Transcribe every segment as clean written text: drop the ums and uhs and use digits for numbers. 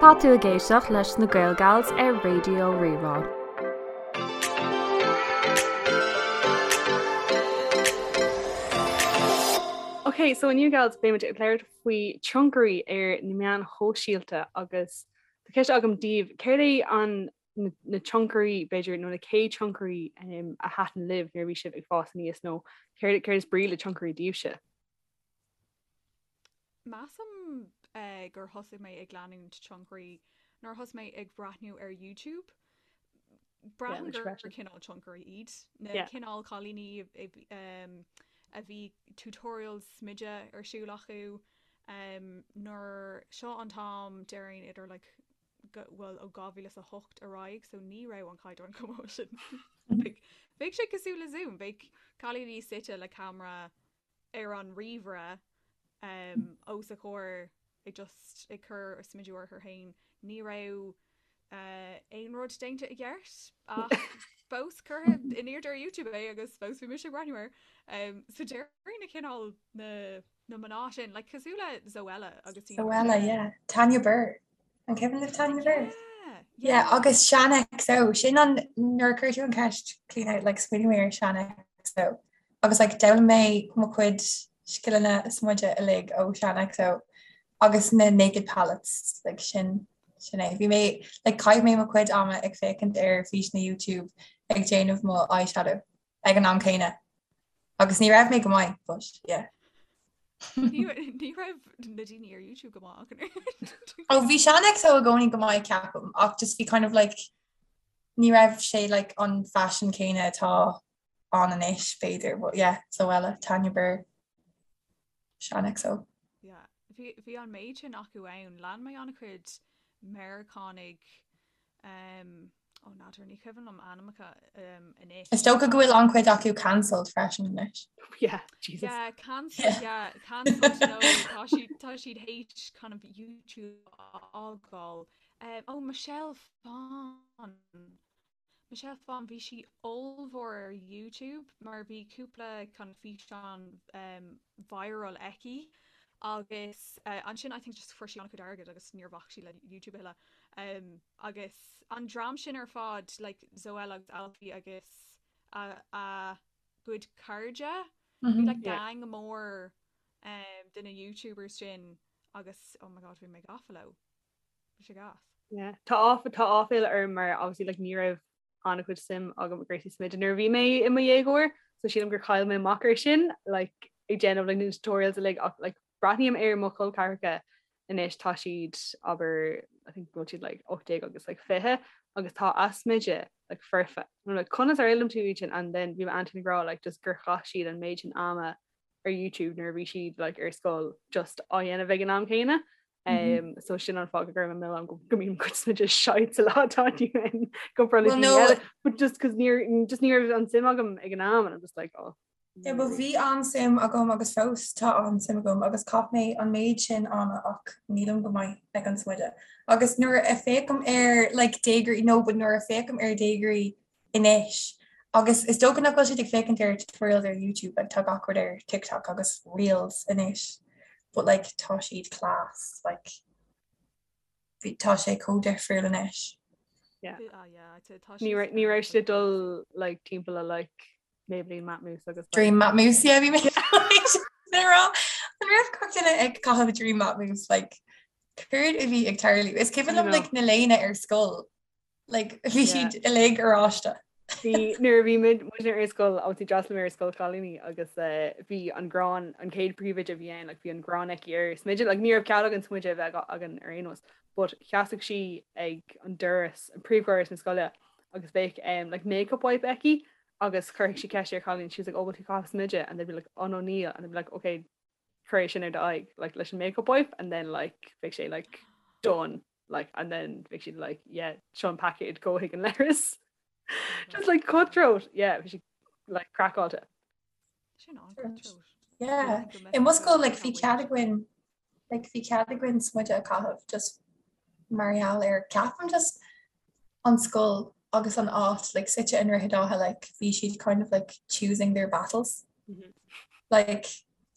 Tá tú ag éisteacht leis na Gaelgals ar Raidió Rí-Rá. Ok, so inniu gals beimid ag labhairt faoi tionchairí ar na meáin shóisialta agus tá ceist agam daoibh, céard é an na tionchairí b'fhéidir nó na chéad tionchairí a thaitin libh nuair a bhí sibh ag fás aníos nó céard céard is brí le tionchairí daoibhse? Measaim gur thosaigh mé ag leanúint tionchairí nuair a thosaigh mé ag breathnú ar YouTube. Braithim gur cineál tionchairí iad na cineál cailíní a bhí tutorials smididh ar siúl acu nuair seo an t-am déarfainn idir like bhuel ó 2008 ar aghaidh so ní raibh an caighdeán chomh maith sin. Bheadh sé cosúil le Zoom, bheadh cailíní suite le ceamara ar an ríomhaire os a comhair ag just ag cur smideadh orthu féin. Ní raibh aon rud déanta i gceart ach fós curtha in airde ar YouTube é agus fós bhí mise ag breathnú air. So déarfainn na cineál na na mná sin, like cosúil le Zoella agus Zoella, yeah. Tanya Burr. An cuimhin libh Tanya Burr? Yeah, yeah. Agus Shaaanxo, sin an nuair a chuir tú an ceist Clíona like smaoinigh mé ar Shaaanxo. Agus like d'fhoghlaim mé mo chuid scileanna smididh uilig ó Shaaanxo agus na Naked Palettes like sin sin é. Bhí mé like chaith mé mo chuid ama ag féachaint ar físeanna YouTube ag déanamh mo eyeshadow ag an am céanna. Agus ní raibh mé go maith, but yeah. Ní raibh na daoine ar YouTube go maith ach an oiread. Ó bhí Shaaanxo i gcónaí go maith ceapaim ach just bhí kind of like ní raibh sé like an fashion céanna atá ann anois b'fhéidir but yeah Zoella, Tanya Burr, Shaaanxo. Yeah bhí bhí an méid sin acu ann. Lean mé an-chuid Meiriceánaigh um, Ó n'fheadar, ní cuimhin liom ainmneacha anois. Is dócha go bhfuil an-chuid acu cancelled freisin anois. Yeah, Jesus. Yeah, cancelled, yeah, cancelled no, tá siad tá siad théis kind of YouTube a fhágáil. Um, oh, Michelle Phan. Michelle Phan, bhí sí ollmhór ar YouTube mar bhí cúpla kind of físeán um, viral aici agus uh, ansin I think just fuair sí an-chuid airgid agus níor bhac sí le YouTube a thuilleadh. Um, agus an dream sin ar fad, like Zoella agus Alfie agus a, a gcuid cairde, bhí like gang mór um, de na YouTubers sin agus oh my god bhí mé gafa leo. Bhí sé gas. Yeah. Tá áf tá áiféala orm mar obviously like ní raibh an-chuid suim agam i gcúrsaí smididh nuair a bhí mé i mo dhéagóir, so sílim gur chaill mé amach ar sin like ag déanamh like na tutorials uilig ach like breathnaím ar mo chol ceathracha anois tá siad abair I think go bhfuil siad like 18 agus like 20 agus tá a smideadh like foirfe. And I'm like conas ar fhoghlaim tú iad sin and then bhí m'aintín ag rá like just gur chaith siad an méid sin ama ar YouTube nuair a bhí siad like ar scoil just á dhéanamh ag an am céanna. Um, so sin an fáth go gcuirim an milleán go go mbíonn mo chuid smideadh shite sa lá atá inniu ann go Well, no. but just cos níor just ní raibh an suim agam ag an am and I'm just like oh Yeah, but bhí an-suim agam agus fós tá an-suim agam agus chaith mé an méid sin ama ach nílim go maith ag an smideadh. Agus nuair a féachaim ar like déagóirí no but nuair a féachaim ar déagóirí anois agus is dócha nach bhfuil siad ag féachaint ar tutorials ar YouTube like tá gach rud ar TikTok agus Reels anois but like tá siad class like bhí tá sé chomh difriúil anois. Yeah. Ah, yeah, I'd say tá Ní raibh ní raibh siad ag dul like timpeall le like Maybelline Matte Mousse agus like Dream Matte Mousse yeah bhí mé rá an raibh gach duine ag caitheamh Dream Matte Mousse like céard a bhí ag tarlú is cuimhin liom like na léine ar scoil Like, bhí siad uilig oráiste. Bhí nuair a bhí muid muidne ar scoil obviously d'fhreastail mé ar scoil chailíní agus eh, bhí an gráin an chéad príomhoide a bhí ann like, bhí an gráin aici ar smideadh like, ní raibh cead againn smideadh a bheith againn ar aon nós but sheasadh sí ag an doras an príomhdhoras na scoile agus bheadh um, like, makeup wipe aici agus chuirfeadh sí ceist ar chailín she was like oh bhfuil tú ag caitheamh smideadh and they'd be like oh no níl and they'd be like okay cuir é sin ar do aghaidh like leis an makeup wipe and then like bheadh sé like done like and then bheadh siad like yeah seo an paicéad gabh chuig an leithreas just like cutthroat yeah bhí sí like craiceáilte Sin an-cutthroat. Yeah. I mo scoil like bhí cead againn like bhí cead againn smideadh a chaitheamh just mar gheall ar ceapaim just an scoil agus an áit like suite i nDroichead Átha like bhí siad kind of like choosing their battles. Mm -hmm. Like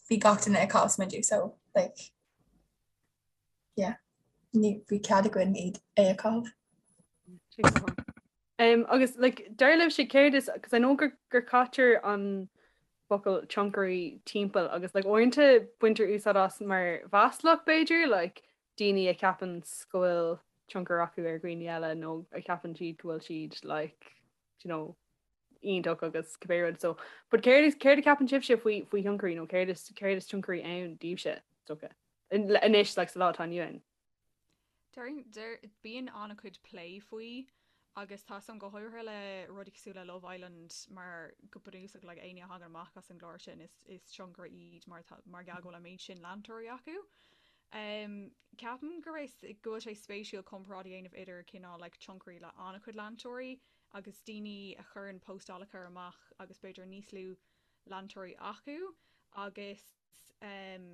bhí gach duine ag caitheamh smideadh so like yeah. ní bhí cead againn iad é a chaitheamh. Um, agus like, dar libhse céard is, cos I know gur, gur caitear an focal tionchairí timpeall agus like, uaireanta baintear úsáid as mar mhaslach b'fhéidir, like, daoine a cheapann go bhfuil tionchar acu ar dhaoine eile nó a cheapann siad go bhfuil siad like, you know, iontach agus cibé rud. So, but céard is céard a cheapann sibhse faoi faoi thionchairí nó céard is céard is tionchairí ann daoibhse, is dócha? Anois like sa lá atá inniu ann. Deir bíonn an-chuid plé faoi agus tá 'fhios a'm go háirithe le rudaí cosúil le Love Island mar go bunúsach like éinne a thagann amach as an gclár sin is is tionchairí iad mar tá mar gheall go bhfuil an méid sin leantóirí acu. Um, ceapaim go raibh go bhfuil sé spéisiúil comparáid a dhéanamh idir cineál like tionchairí le an-chuid leantóirí agus daoine a chuireann postálacha amach agus b'fhéidir níos lú leantóirí acu agus um,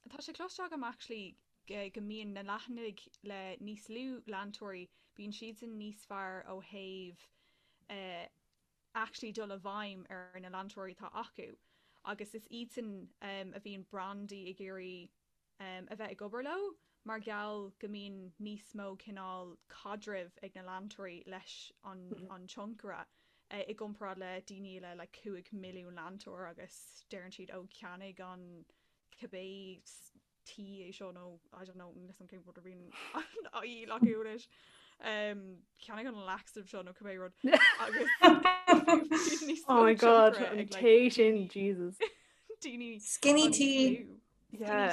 tá sé cloiste agam actually go mbíonn na leathanaigh le níos lú leantóirí, bíonn siadsan níos fearr ó thaobh eh, actually dul i bhfeidhm ar na leantóirí atá acu agus is iadsan um, a bhíonn brandaí ag iarraidh um, a bheith ag obair leo mar gheall go mbíonn níos mó cineál caidrimh ag na leantóirí leis an, an tionchaire eh, i gcomparáid le daoine le like, 5 milliún leantóir agus deireann siad ó ceannaigh an cibé tae é seo nó I don't know níl 'fhios a'm cén rud a bhíonn á dhíol acu anois. Um, ceannaigh an laxative seo nó cibé rud agus níos Oh my god, an tae sin, Jesus. daoine Skinny tea. Yeah.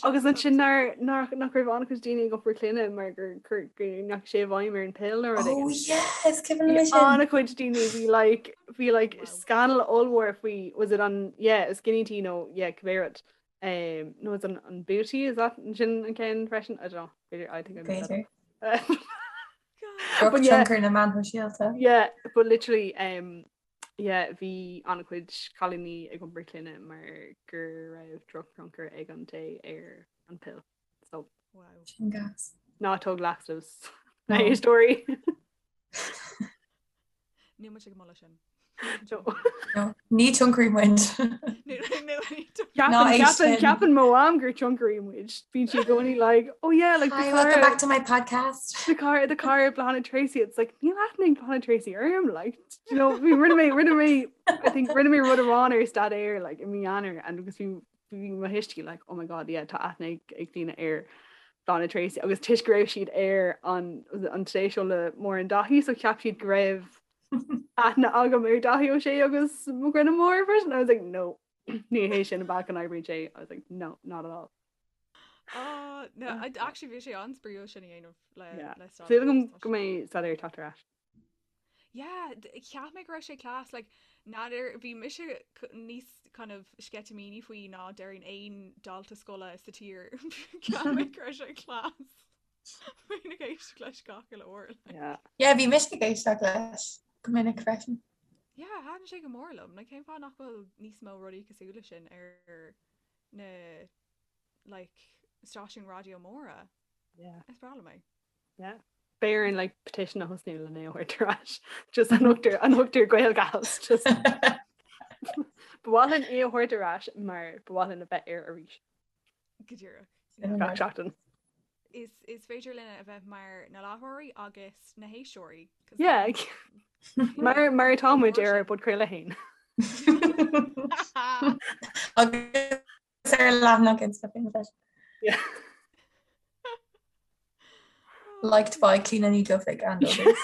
Agus ansin nár nach nach raibh an-chuid daoine ag iompar clainne mar gur gur go ndeachaigh sé i bhfeidhm ar an pill nó rud Oh éigin. yes, cuimhin liom Bhí sin. an-chuid daoine bhí like bhí like Wow. scannal ollmhór faoi was it an yeah skinny tea nó yeah cibé rud. Um, nó is an an booty is that sin an ceann freisin? I don't know. B'fhéidir I think I made that B'fhéidir. up. But yeah, Drochthionchar na meán sóisialta. yeah, but literally um, yeah, bhí an-chuid cailíní ag iompar clainne mar go raibh drochthionchar ag an tae ar an pill. So Wow. Sin gas. ná tóg laxatives. Na No. héisteoirí. Níl muid ag moladh sin. No, ní tionchairí muid. Ceapann ceapann ceapann mo mham gur tionchairí muid. Bíonn sí i gcónaí like, oh yeah, like Hi, welcome back to my podcast. The car the car Bláthnaid Tracy it's like níl aithne ag Bláthnaid Tracy orm like you know bhí rinne mé rinne mé I think rinne mé rud amháin ar staidéar like i mí Eanáir and agus bhí bhí mo thuistí like oh my god yeah tá aithne ag ag daoine ar Bláthnaid Tracy agus toisc go raibh siad ar an an Today Show le Máire Dáithí so cheap siad go raibh aithne agam ar Dáithí Ó Sé agus mo dhuine mór freisin I was like no ní hé sin an bealach a n-oibríonn sé I was like no not at all. Oh, no, I actually bhí sé an-spraíúil sin a dhéanamh le Yeah. le Súil agam go mbeidh staidéar ag teacht ar ais. Yeah, cheap mé go raibh sé class, like, n'fheadar, bhí mise níos kind of sceitimíní faoi ná déarfainn aon dalta scoile sa tír. Cheap mé go raibh sé class. Bhínn ag éisteacht leis gach uile uair. Like. Yeah. Yeah, bhí mise ag éisteacht leis go minic freisin. Yeah, thaitin sé go mór liom. Like, cén fáth nach bhfuil níos mó rudaí cosúil leis sin ar na like, stáisiúin raidió móra? Yeah. Is breá liom é. Yeah. Beidh orainn like petition a thosnú le é a thabhairt ar ais. Just an thugtar an thugtar GaelGals just Ba mhaith linn é a thabhairt ar ais mar ba mhaith linn a bheith air arís. Go díreach. Gach seachtain. Is is féidir linn a bheith mar na láithreoirí agus na héisteoirí. 'cause Yeah. Mar mar atá muid ar ár bpodchraoladh féin. Agus ar leathanach Insta féin freisin. Yeah. Liked by Clíona Ní Dhufaigh and others.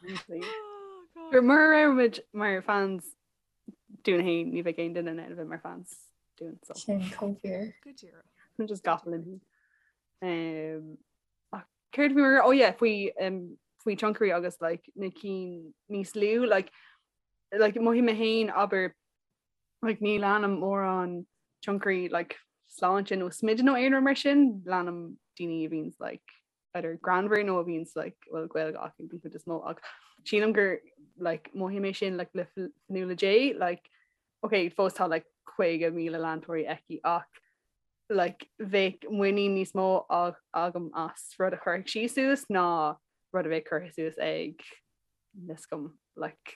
Oh, God. Gur mura raibh muid mar fans dúinn féin ní bheadh aon duine in ann a bheith mar fans dúinn so Sin chomh fíor. Go díreach. just gafa linn féin. Um, ach céard bhí mar oh yeah faoi um, faoi tionchairí agus like na cinn níos lú like like mothaím mé féin abair like ní leanaim mórán tionchairí like sláinte nó smididh nó aon rud mar sin, leanaim daoine a bhíonns like either greannmhar nó a bhíonns like bhfuil Gaeilge acu den chuid is mó ach sílim gur like mothaím é sin like le Fionnuala J like ok fós tá like 50,000 leantóirí aici ach like bheadh muinín níos mó agam as rud a chuirfeadh sí suas ná rud a bheadh curtha suas ag níl 'fhios agam like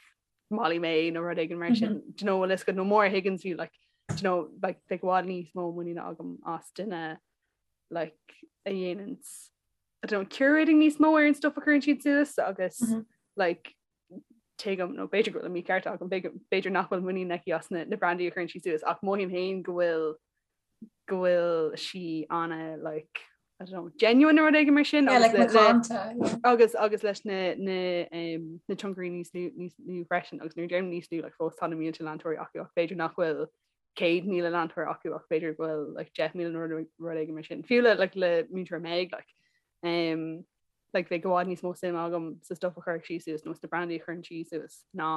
Molly-Mae nó rud éigin mar sin. Do you know bhfuil 'fhios agat nó Maura Higgins bhí like. you know, like bheadh i bhfad níos mó muiníne agam as duine like a dhéanann I don't know, curating níos mó ar an stuff a chuireann siad suas agus mm -hmm. like tuigim nó b'fhéidir go bhfuil an mícheart agam b'fhéidir nach bhfuil muinín aici as na, na brandaí a chuireann sí suas ach mothaím féin go bhfuil go bhfuil sí ana like I don't know, genuine nó rud éigin mar sin yeah, like macánta, yeah. agus agus leis na na um, na tionchairí níos lú níos lú freisin agus nuair a deirim níos lú like, fós tá na mílte leantóirí acu ach b'fhéidir nach bhfuil 100,000 leantóir acu ach b'fhéidir go bhfuil like, 10,000 nó rud éigin mar sin. Fiú le like, le múinteoir Meg like, um, like, bheadh i bhfad níos mó suim agam sa stuff a chuirfeadh sí suas nó sna brandaí a chuireann sí suas ná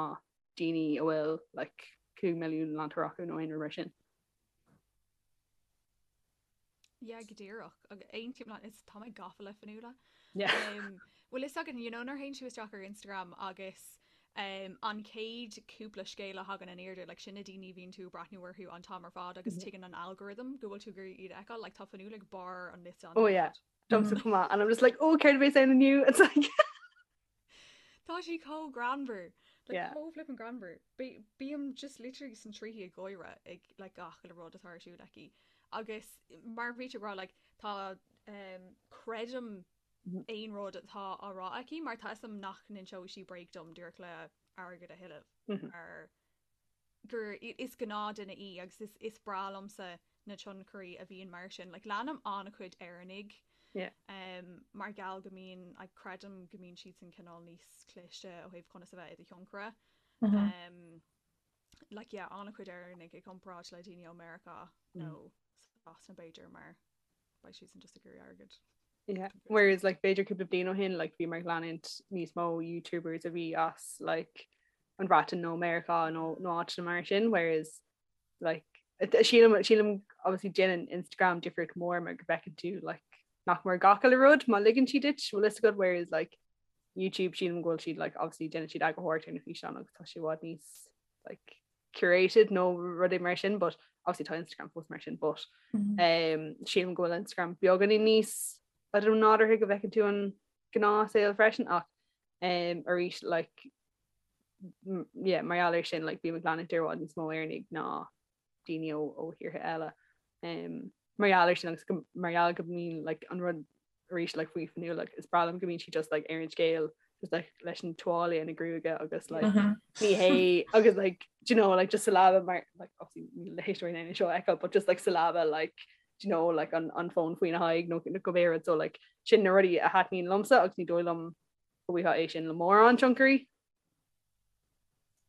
daoine a bhfuil like, 5 milliún leantóir acu nó aon rud mar sin. Yeah, go díreach. Agus aontaím leat, is tá mé gafa le Fionnuala. Yeah. Um, bhfuil fhios againn, you know, nuair a théann tú isteach ar Instagram agus um, an chéad cúpla scéal a thagann in airde, like, sin na daoine a bhíonn tú ag breathnú orthu an t-am ar fad agus tuigeann an algorithm go bhfuil tú ag iarraidh iad a fheiceáil, like, tá Fionnuala ag barr an liosta an Oh t-am ar yeah. fad. Domsa chomh maith. And I'm just like, oh, céard a bheas ann inniu? It's like Tá sí chomh greannmhar. Like, Yeah. chomh flippin' greannmhar. Bí- Bím just literally sna tríthí ag gáire ag like, gach uile rud atá ar siúl aici. Agus mar a bhí tú ag rá like, tá um, creidim Mhm. aon rud atá á rá aici mar tá fhios agam nach n-inseoidh sí bréag dom díreach le airgead a thuilleamh. Mhm. Mar gur is gnáthduine í agus is is breá liomsa na tionchairí a bhíonn mar sin. Like leanaim an-chuid Éireannaigh Yeah. um, mar gheall go mbíonn like, creidim go mbíonn siadsan cineál níos cliste ó thaobh conas a bheith i do thionchaire. Mm -hmm. Um, like yeah, an-chuid Éireannaigh i gcomparáid le daoine ó Meiriceá nó Sasana b'fhéidir mar beidh siadsan just ag iarraidh airgead. Yeah. Whereas like b'fhéidir cúpla bliain ó shin like bhí mé ag leanúint níos mó YouTubers a bhí as like an Bhreatain nó Meiriceá nó nó áiteanna mar sin whereas like sílim sílim obviously déanann Instagram difríocht mór mar go bhfeiceann tú like nach mór gach uile rud má ligeann siad duit bhfuil fhios agat whereas like YouTube sílim go bhfuil siad like obviously déanann siad eagarthóireacht ar na físeáin agus tá sé i bhfad níos like curated nó rudaí mar sin but obviously tá Instagram fós mar sin but mm -hmm. um, sílim go bhfuil Instagram beagáinín níos I don't know nádúrtha go bhfeiceann tú an gnáthshaol freisin ach um, arís like yeah, mar gheall air sin like, bím ag leanúint i bhfad níos mó Éireannaigh ná daoine ó, ó thíortha eile. Um, mar gheall air sin agus go, mar gheall go mbíonn like, an rud arís like faoi Fionnuala like is breá liom go mbíonn sí just like ar an scéal just like leis an tuáille ina gruaige agus like mm -hmm. ní hé agus like do you know like just sa leaba mar like obviously níl na héisteoirí in ann seo a fheiceáil but just like sa leaba like do you know like an an fón faoina haghaidh nó nó cibé rud so like sin na rudaí a thaitníonn liomsa agus ní dóigh liom go bhfaighfeá é sin le mórán tionchairí.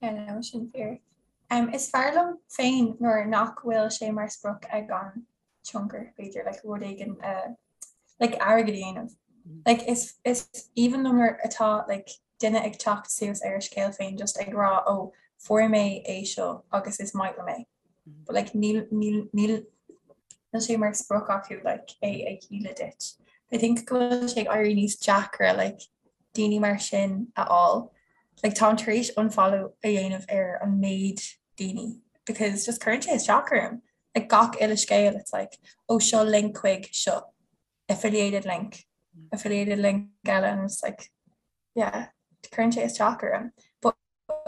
Yeah, no, sin fíor. Um, is fearr liom féin nuair nach bhfuil sé mar sprioc ag an tionchaire, b'fhéidir, like, rud éigin uh, like, airgead a dhéanamh. Mm. Like, is, is aoibhinn liom nuair atá like, duine ag teacht suas ar a scéal féin just ag rá ó oh, fuair mé é seo agus is maith liom é. Mm. But like, níl, níl, níl, níl sé mar sprioc acu like, é a dhíol duit. I think go bhfuil sé ag éirí níos deacra like, daoine mar sin a fháil. Like táim tar éis unfollow a dhéanamh ar an méid daoine because just cuireann sé isteach orm. Like gach uile scéal it's like oh seo link chuig seo affiliated link affiliated link eile and it's like yeah cuireann sé isteach orm. But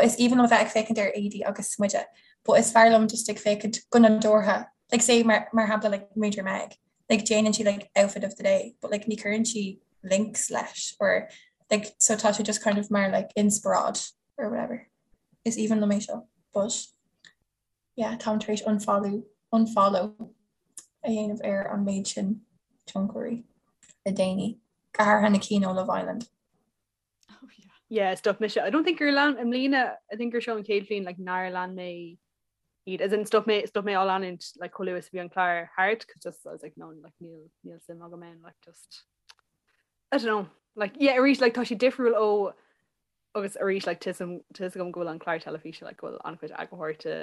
is aoibhinn liom a bheith ag féachaint ar éadaí agus smideadh but is fearr liom just ag féachaint go nádúrtha like say mar mar shampla like Múinteoir Meg like déanann sí like outfit of the day but like ní chuireann sí links leis or like so tá sé just kind of mar like inspioráid or whatever. Is aoibhinn liom é seo but yeah táim tar éis unfollow unfollow a dhéanamh ar an méid sin tionchairí le déanaí go háirithe na cinn ó Love Island. Oh yeah. Yeah, stop mise. I don't think gur lean i mbliana, I think gur seo an chéad bhliain like nár lean mé iad. As in stop mé stop mé á leanúint like chomh luath is a bhí an clár thart cause just I was like no like níl níl suim agam ann like just I don't know like yeah arís like tá sé difriúil ó agus arís like tá a fhios agam go bhfuil an clár teilifíse like go bhfuil an-chuid eagarthóireachta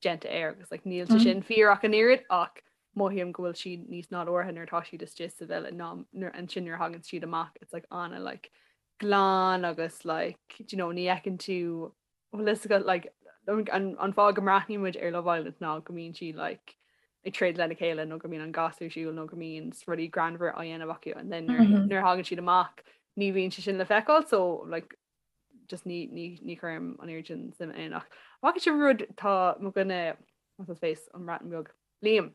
déanta air agus like níl sé sin fíor ach an oiread ach mothaím go bhfuil siad níos nádúrtha nuair atá siad istigh sa villa ná nuair ansin nuair a thagann siad amach it's like ana like glan agus like do you know ní fheiceann tú bhfuil fhios agat like an an fáth go mbreathnaíonn muid ar Love Island ná go mbíonn siad like ag troid lena chéile nó go mbíonn an gas ar siúl nó go mbíonn rudaí greannmhar á dhéanamh acu and then nuair nuair a thagann siad amach ní bhíonn sé sin le feiceáil so like just ní ní ní chuirim an oiread sin suim ann ach bhfaca sibh rud tá mo dhuine. What's his face an mBreatain Bheag Liam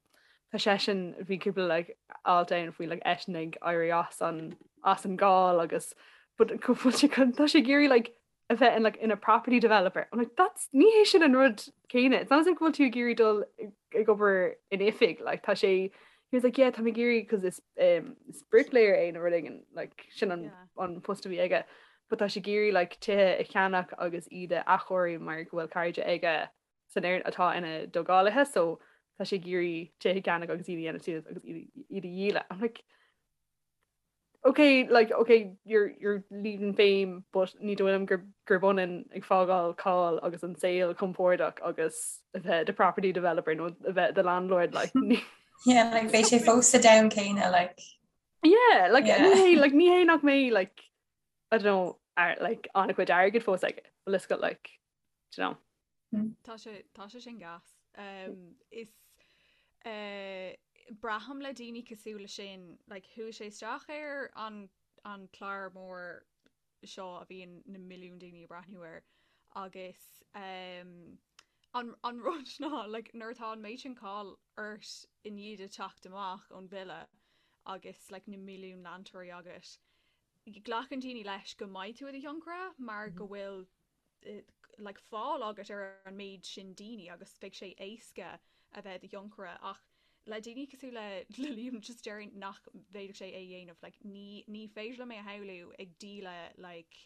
tá seisean bhí cúpla like alt ann faoi like eisean ag éirí as an as an gcáil agus but go bhfuil sé tá sé ag iarraidh like a bheith in like ina property developer. I'm like that's ní hé sin an rud céanna. It's not as if go bhfuil tú ag iarraidh dul ag obair in oifig like tá sé he was like yeah tá mé ag iarraidh cos is um, is bricklayer é nó rud éigin like sin an, yeah. an post a bhí aige but tá sé ag iarraidh like tithe a cheannach agus iad a athchóiriú mar go bhfuil cairde aige san ar atá ina dtógálaithe so tá sé ag iarraidh tithe a cheannach agus iad a dhéanamh suas agus iad a dhíol. I'm like okay like okay you're you're leaving fame but ní dóigh liom gur gurb ionann ag fágáil cáil agus an saol compordach agus a bheith i do property developer nó a bheith i do landlord like ní Yeah, like beidh sé fós sa domhan céanna like. Yeah, like yeah. ní hé like ní hé nach mbeidh like I don't know ar, like an-chuid airgid fós aige but let's go like do you know. Tá sé tá sé sin gas. Um, is uh, braithim le daoine cosúil le sin, like, chuaigh sé isteach ar an, an clár mór seo a bhíonn na milliúin daoine ag breathnú air agus um, an, an rud ná like, nuair atá an méid sin cáil ort i ndiaidh duit teacht amach ón villa agus like, na milliúin leantóirí agat, glacann daoine leis go mbeidh tú i do thionchaire mar go bhfuil like fáil agat ar an méid sin daoine agus beidh sé éasca a bheith i do thionchaire ach le daoine cosúil le le Liam just déarfainn nach bhféadfadh sé é a dhéanamh like ní ní féidir liom é a shamhlú ag díol like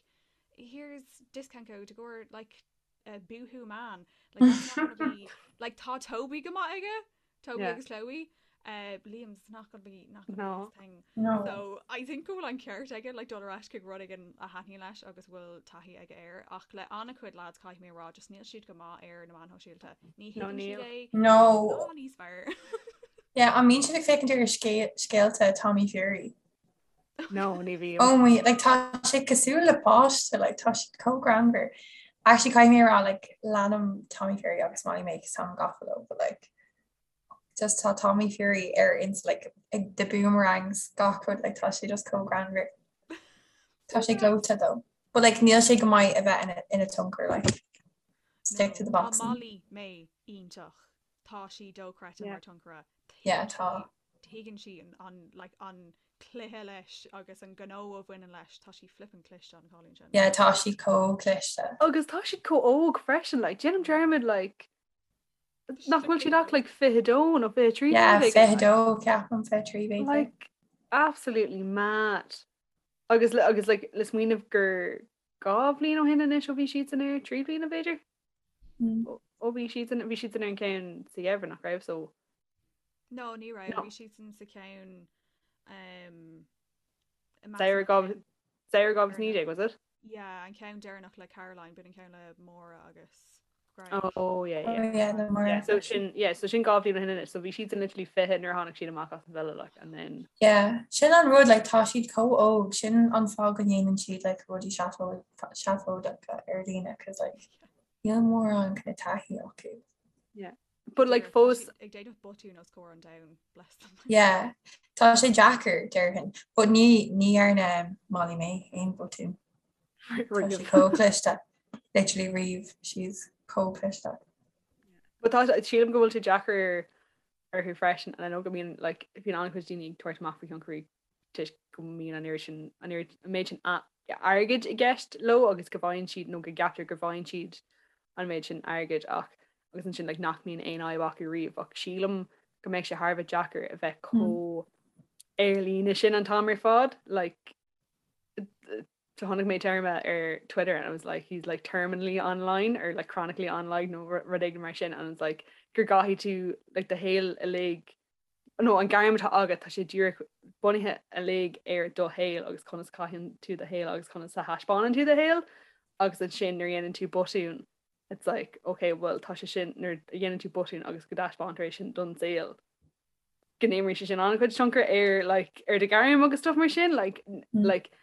here's discount code i gcomhair like uh, Boohoo Man like that's not gonna be like tá Toby go maith aige Toby yeah. agus Chloe. Uh, Liam's not gonna be not gonna no. be his thing. No. So I think go bhfuil an ceart aige like dul ar ais chuig rud éigin a thaitníonn leis agus bhfuil taithí aige air ach le an-chuid lads caithfidh mé a rá just níl siad go maith ar na meáin shóisialta. Ní thuigeann siad é. No. Ná níos fearr. Yeah, an mbíonn sibh ag féachaint ar scéalta Tommy Fury? No, ní bhím. Oh my, like tá sé cosúil le páiste, like tá siad chomh greannmhar. Actually caithfidh mé a rá like leanaim Tommy Fury agus Molly Mae cos táim gafa leo, but like just tá Tommy Fury ar ins like ag the boomerangs gach rud like tá sé just chomh greannmhar. Tá sé gleoite though. But like níl sé go maith a bheith ina ina tionchaire like stick to the Tá boxing. Molly Mae iontach. Tá sí dochreidte mar tionchaire. Yeah, tá. Tuigeann sí an like an cluiche leis agus an gnó a bhaineann leis, tá sí flippin' cliste an cailín sin. Yeah, tá sí chomh cliste. Agus tá siad chomh óg freisin, like déanaim dearmad like nach bhfuil siad ach like 22 nó 23 Yeah, 22 ceapaim 23 b'fhéidir. Like absolutely mad. Agus agus like le smaoineamh gur 2 bhliain ó shin anois ó bhí siadsan air, 3 bliana b'fhéidir? Ó bhí siadsan bhí siadsan ar an ceann sa gheimhreadh nach raibh so No, ní raibh. Bhí siadsan sa cheann um, Samhradh 2019, was it? Yeah, an ceann deireanach le Caroline, b'in an ceann le Máire agus Greg. Oh, yeah, yeah. Oh, yeah, le Máire. Yeah, so sin, yeah, so sin 2 bhliain ó shin anois, so bhí siadsan literally 20 nuair a tháinig siad amach as an villa, like, and then... Yeah, sin an rud, like, tá siad chomh óg, sin an fáth go ndéanann siad, like, rudaí seafóideacha ar líne, cos, like, níl mórán kind of taithí acu. Yeah. But like fós ag déanamh botún os comhair an domhain, bless them. Yeah, tá sé deacair déarfainn, but ní ní dhearna Molly Mae aon botún. Tá sí chomh cliste, literally riamh, she's chomh cliste. But tá sílim go bhfuil sé deacair orthu freisin and I know go mbíonn like bíonn an-chuid daoine ag tabhairt amach faoi thionchairí toisc go mbíonn an oiread sin an oiread an méid sin airgid i gceist leo agus go bhfaigheann siad nó go gceaptar go bhfaigheann siad an méid sin airgid ach agus ansin like nach mbíonn aon fhadhb acu riamh ach sílim go mbeadh sé thar a bheith deacair a bheith chomh ar líne sin an t-am ar fad like chonaic mé téarma ar Twitter and I was like he's like terminally online or like chronically online nó rud éigin mar sin and it's like gur gcaithfidh tú like do shaol uilig nó an gairm atá agat, tá sé díreach bunaithe uilig ar do shaol agus conas a chaitheann tú do shaol agus conas a thaispeánann tú do shaol agus ansin nuair a dhéanann tú botún it's like ok well tá sé sin nuair a dhéanann tú botún agus go dtaispeántar é sin don saol go n-imríonn sé sin an-chuid tionchar ar like ar do ghairm agus stuff mar sin like mm. like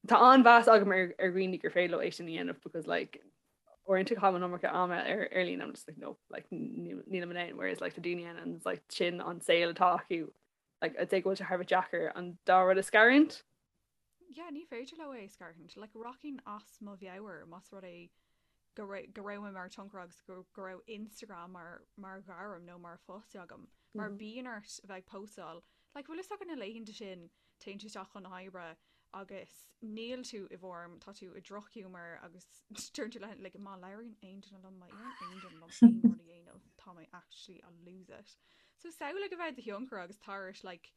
Tá an-mheas agam ar ar dhaoine gur féidir leo é sin a dhéanamh because like uaireanta caithim an iomarca ama ar ar líne I'm just like no like nílim in ann whereas like tá daoine ann and it's like sin an saol atá acu like I'd say go bhfuil sé thar a bheith deacair an dá rud a scarúint. Yeah, ní féidir leo é a scarúint. Like rachainn as mo mheabhair más rud é. Go raibh go raibh mé mar tionchaire agus go go raibh Instagram mar mar ghairm nó mar phost agam. Mar bíonn ort a bheith ag póstáil. Like bhfuil fhios agat na laethanta sin téann tú isteach chun na hoibre agus níl tú i bhform, tá tú i drochghiúmar agus deireann tú le like má labhraíonn aon duine liom, má iarrann aon duine liom aon rud a dhéanamh, tá mé actually I'll lose it. So samhlaigh a bheith i do thionchaire agus tar éis like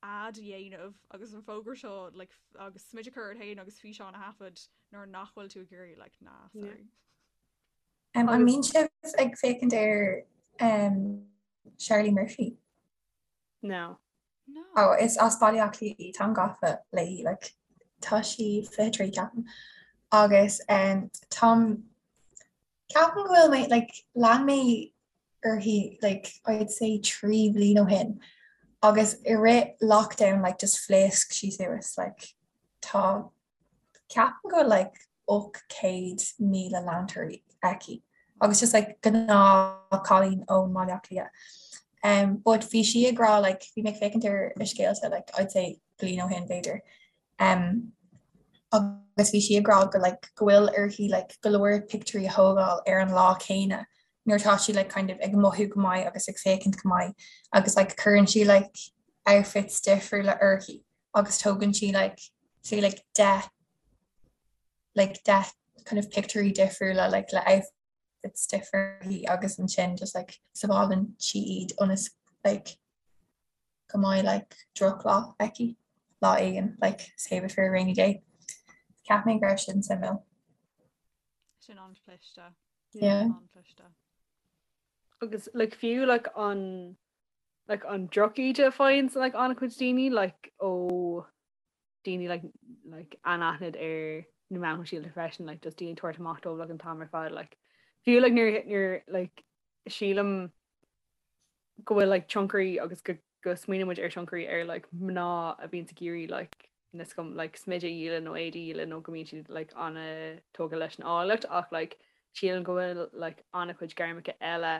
ad a dhéanamh agus an fógra seo like agus smideadh a chur ort féin agus físeán a thaifead nuair nach bhfuil tú ag iarraidh like nah sorry. Um, an mbíonn sibh ag féachaint ar um, Charlie Murphy? No. No. Oh, is as Baile Átha Cliath í, táim gafa léi, like, tá sí 23 ceapaim. Agus um, táim Ceapaim go bhfuil mé, like, lean mé uirthi, like, I'd say 3 bhliain ó shin agus i rith lockdown, like, just phléasc sí suas, like, tá, ceapaim go bhfuil, like, 800,000 leantóirí aici agus just, like, gnáth cailín ón mBaile Átha Cliath. Um, but bhí sí ag rá, like, bhí mé ag féachaint ar a scéalta, like, I'd say bliain ó shin b'fhéidir, Um, agus bhí sí ag rá go like, go bhfuil uirthi like, go leor pictiúirí a thógáil ar an lá céanna nuair atá sí like, kind of ag mothú go maith agus ag féachaint go maith agus like, cuireann sí like, outfits difriúla uirthi agus tógann sí like, say like, 10 like, 10 kind of pictiúirí difriúla like, le outfits difriúla agus ansin just like, sábhálann sí iad ionas like, go mbeidh like drochlá aici lá éigin like save it for a rainy day. Cheap mé go raibh sin suimiúil. Sin an-chliste. Yeah. An-chliste. Agus like fiú like an like an drochíde a faigheann like an-chuid daoine like ó daoine like like anaithnid ar na meáin shóisialta freisin like just daoine ag tabhairt amach dóibh like an t-am ar fad like fiú like nuair nuair like sílim go bhfuil like tionchairí agus go go smaoiníonn muid ar tionchairí ar like mná a bhíonns ag iarraidh like níl 'fhios agam like smideadh a dhíol nó éadaí a dhíol nó go mbíonn siad like an-tógtha leis an áilleacht ach like sílim go bhfuil like an-chuid gairmeacha eile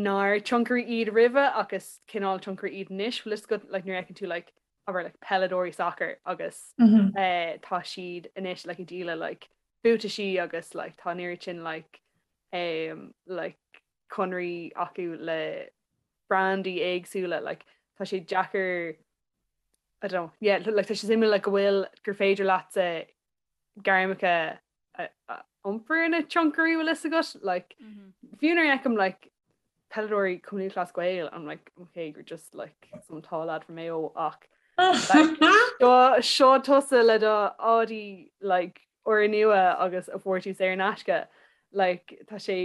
nár tionchairí iad roimhe ach is cineál tionchairí iad anois bhfuil fhios agat like nuair a fheiceann tú like abair like peileadóirí sacair agus mm -hmm. eh, tá siad anois like ag díol like buataisí agus like tá an oiread sin like um, like conraí acu le brandaí éagsúla like tá sé deacair I don't know yeah like tá sé suimiúil like go bhfuil gur féidir leatsa gairmeacha a iompar ina tionchairí bhfuil fhios agat like mm -hmm. fiú nuair a fheicim like peileadóirí Cumann Lúthchleas Gael I'm like okay you're just like some tall lad from Mayo ach like, seo seo tusa le do éadaí like úrnua agus a fuair tú saor in aisce like tá sé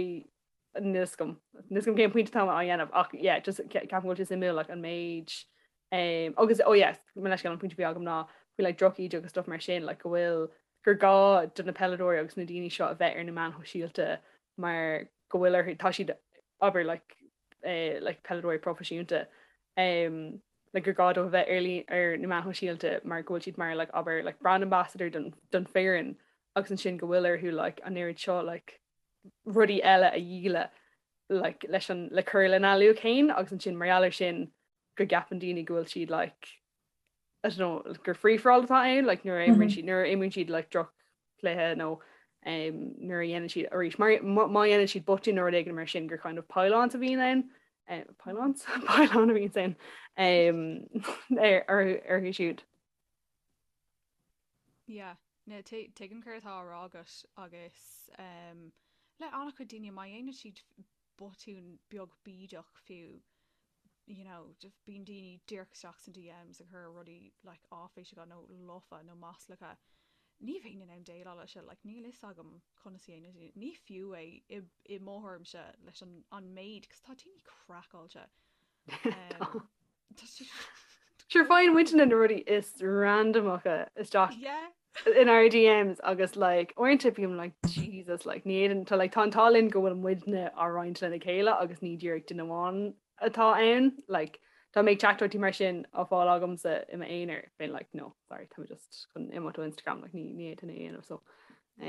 níl 'fhios agam níl 'fhios agam cén pointe atá á dhéanamh ach yeah just ceapaim go bhfuil sé suimiúil like an méid um, agus oh yes mo leithscéal an pointe a bhí agam ná faoi like drochíde agus stuff mar sin like go bhfuil gur gá do na peileadóirí agus na daoine seo a bheith ar na meáin shóisialta mar go bhfuil orthu tá siad abair like eh, like peileadóirí proifisiúnta um, like gur gá dóibh a bheith ar ar na meáin shóisialta mar go bhfuil siad mar like abair like brand ambassador don don foireann agus ansin go bhfuil orthu like an oiread seo like rudaí eile a dhíol like leis an le cur lena luach féin agus ansin mar gheall air sin go gceapann daoine go bhfuil siad like I don't know gur free for all atá ann like nuair a imríonn siad nuair a imríonn siad like droch-chluiche nó um, nuair a dhéanann siad arís mar má dhéanann siad botún nó rud éigin mar sin gur kind of pile-ons a bhíonn ann um, pile-ons pile-on a bhíonn ann um, ar orthu siúd. Yeah, no, tuigim céard atá á rá agat agus um, le an-chuid daoine má dhéanann siad botún beag bídeach fiú you know bíonn daoine díreach isteach sna DMs ag cur rudaí like áiféiseacha nó lofa nó maslacha. Ní bheinn in ann déileáil leis seo, like níl fhios agam conas a dhéanann daoine. Ní fiú é i i mo thuairimse leis an an méid 'cause tá daoine craiceáilte. Um, tá siad Sure faigheann muidne na rudaí is randamacha isteach Yeah. in our DMs agus like uaireanta bím like Jesus like ní fhéadann tá like tá an t-ádh linn go bhfuil muidne á roinnt lena chéile agus ní díreach duine amháin atá ann like dá mbeadh teachtaireachtaí mar sin á fáil agamsa i m'aonar bheinn like no sorry tá mé just chun imeacht ó Instagram like ní ní fhéadfainn é a dhéanamh so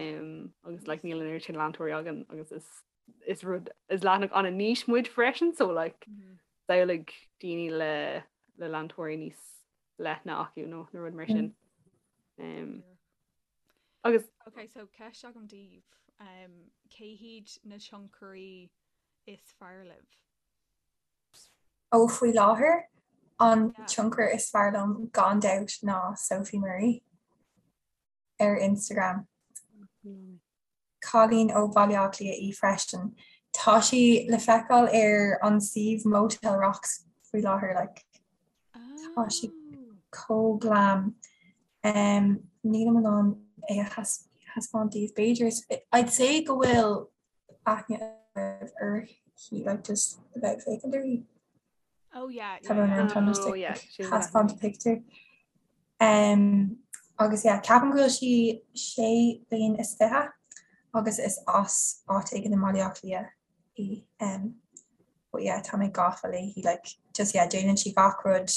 um, agus like níl an oiread sin leantóirí againn agus is is rud is leathanach an-niche muid freisin so like mm -hmm. samhlaigh daoine le le leantóirí níos leithne acu nó nó rud mar sin. Um, agus Ok, so ceist agam daoibh. Um, cé hiad na tionchairí is fearr libh? Ó faoi láthair, an tionchar is fearr liom gan dabht ná Sophie Murray ar Instagram. Cailín ó Bhaile Átha Cliath í freisin. Tá sí le feiceáil ar an suíomh Motel Rocks faoi láthair like. Tá sí chomh glam. Um, nílim in ann é a thaispeáint daoibh b'fhéidir. I'd say go bhfuil aithne agaibh uirthi like just a bheith ag féachaint uirthi. Oh yeah, yeah, yeah. Tá just oh, yeah. thaispeáint picture. Um, agus yeah, ceapaim go bhfuil sí sé bliain is fiche agus is as áit éigin i mBaile Átha Cliath í. Um, but yeah, tá mé gafa léi like just yeah, déanann sí gach rud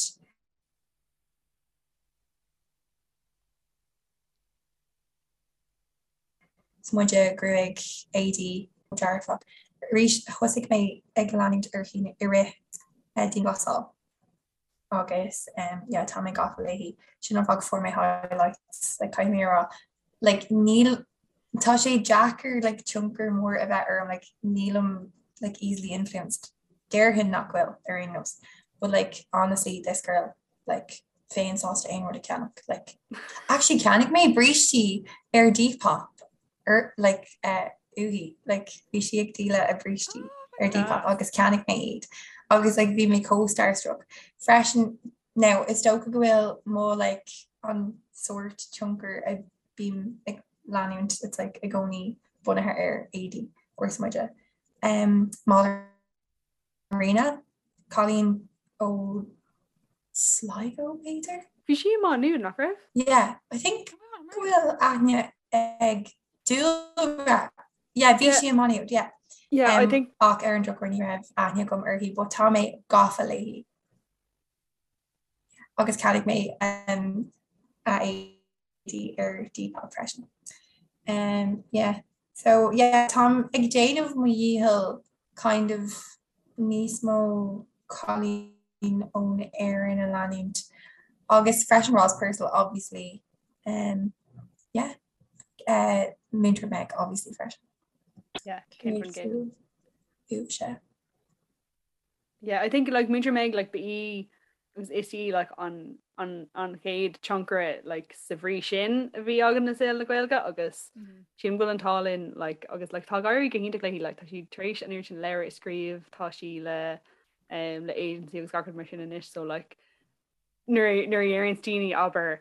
Smuide, gruaig, éadaí, dearfach. Arís, thosaigh mé ag leanúint uirthi i rith dianghlasáil agus yeah tá mé gafa léi. Sin an fáth go fuair mé highlights like caithfidh mé a rá like níl tá sé deacair like tionchar mór a bheith orm like nílim like easily influenced. Déarfainn nach bhfuil ar aon nós but like honestly this girl like bheinn sásta aon rud a cheannach like actually cheannaigh mé brístí ar Depop ar like uh, uaithi like bhí sí ag díol a brístí oh ar Depop agus cheannaigh mé iad agus like bhí mé chomh starstruck freisin now is dócha go bhfuil mo like an sórt tionchar a bím ag leanúint it's like i gcónaí bunaithe ar éadaí or smuide um, Marina, cailín ó Sligo b'fhéidir? Bhí sí i Má Nuad, nach raibh? Yeah, I think go bhfuil aithne ag Dúlra. Yeah, bhí sí i Má Nuad, yeah. Yeah, I think ach ar an drochuair ní raibh aithne agam uirthi, but tá mé gafa léi. Agus cheannaigh mé um, a éadaí ar Depop freisin. Um, yeah. So yeah, táim ag déanamh mo dhícheall kind of níos mó cailín ón Éirinn a leanúint agus freisin Roz Purcell obviously. Um, yeah. Uh, Múinteoir Meg obviously freisin. Yeah, cén Uaimse. Yeah, I think like Múinteoir Meg like ba í agus is í like an an an chéad tionchaire like sa bhrí sin a bhí againn i saol na Gaeilge agus mm -hmm. sílim go bhfuil an t-ádh linn like agus like tá ag éirí go hiontach léi like tá sí tar éis an oiread sin leabhar a scríobh tá sí le um, le agency agus gach rud mar sin anois so like nuair nuair a deireann daoine abair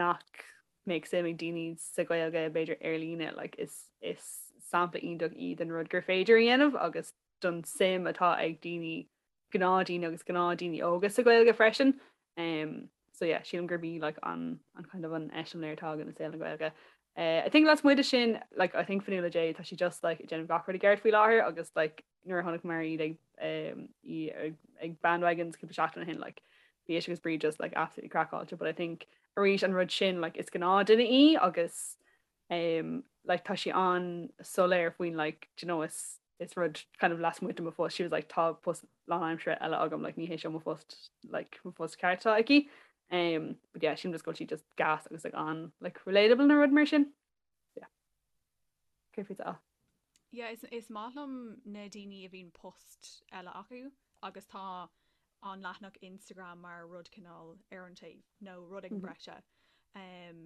nach mbeadh suim ag daoine sa Ghaeilge b'fhéidir ar líne like is is sampla iontach í den rud gur féidir a dhéanamh agus don suim atá ag daoine, gnáthdhaoine agus gnáthdhaoine óga sa Ghaeilge freisin. Um, so yeah, sílim gurb í like, an, an kind of an eiseamláir atá againn i saol na Gaeilge. Uh, I think lasmuigh de sin, like, I think Fionnuala J, tá sí just like, ag déanamh gach rud i gceart faoi láthair agus like, nuair a chonaiceamar iad ag, um, í ag, ag Bandwagons cúpla seachtain ó shin, like, bhí ise agus Bríd just like, absolutely craiceáilte, but I think arís an rud sin like, is gnáthduine í agus um, like, tá sí an-soiléir faoin like, do you know, is is rud kind of lasmuigh de mo phost she was like tá post lánaimseartha eile agam like ní hé seo mo phost like mo phost ceart atá aici um but yeah sílim just go bhfuil sí just gas agus like an like relatable nó rud mar sin yeah cé faoi tá Yeah, is, is maith liom na daoine a bhíonn post eile acu agus tá an leathanach Instagram mar rud cineál ar an taobh nó rud éigin breise. Um,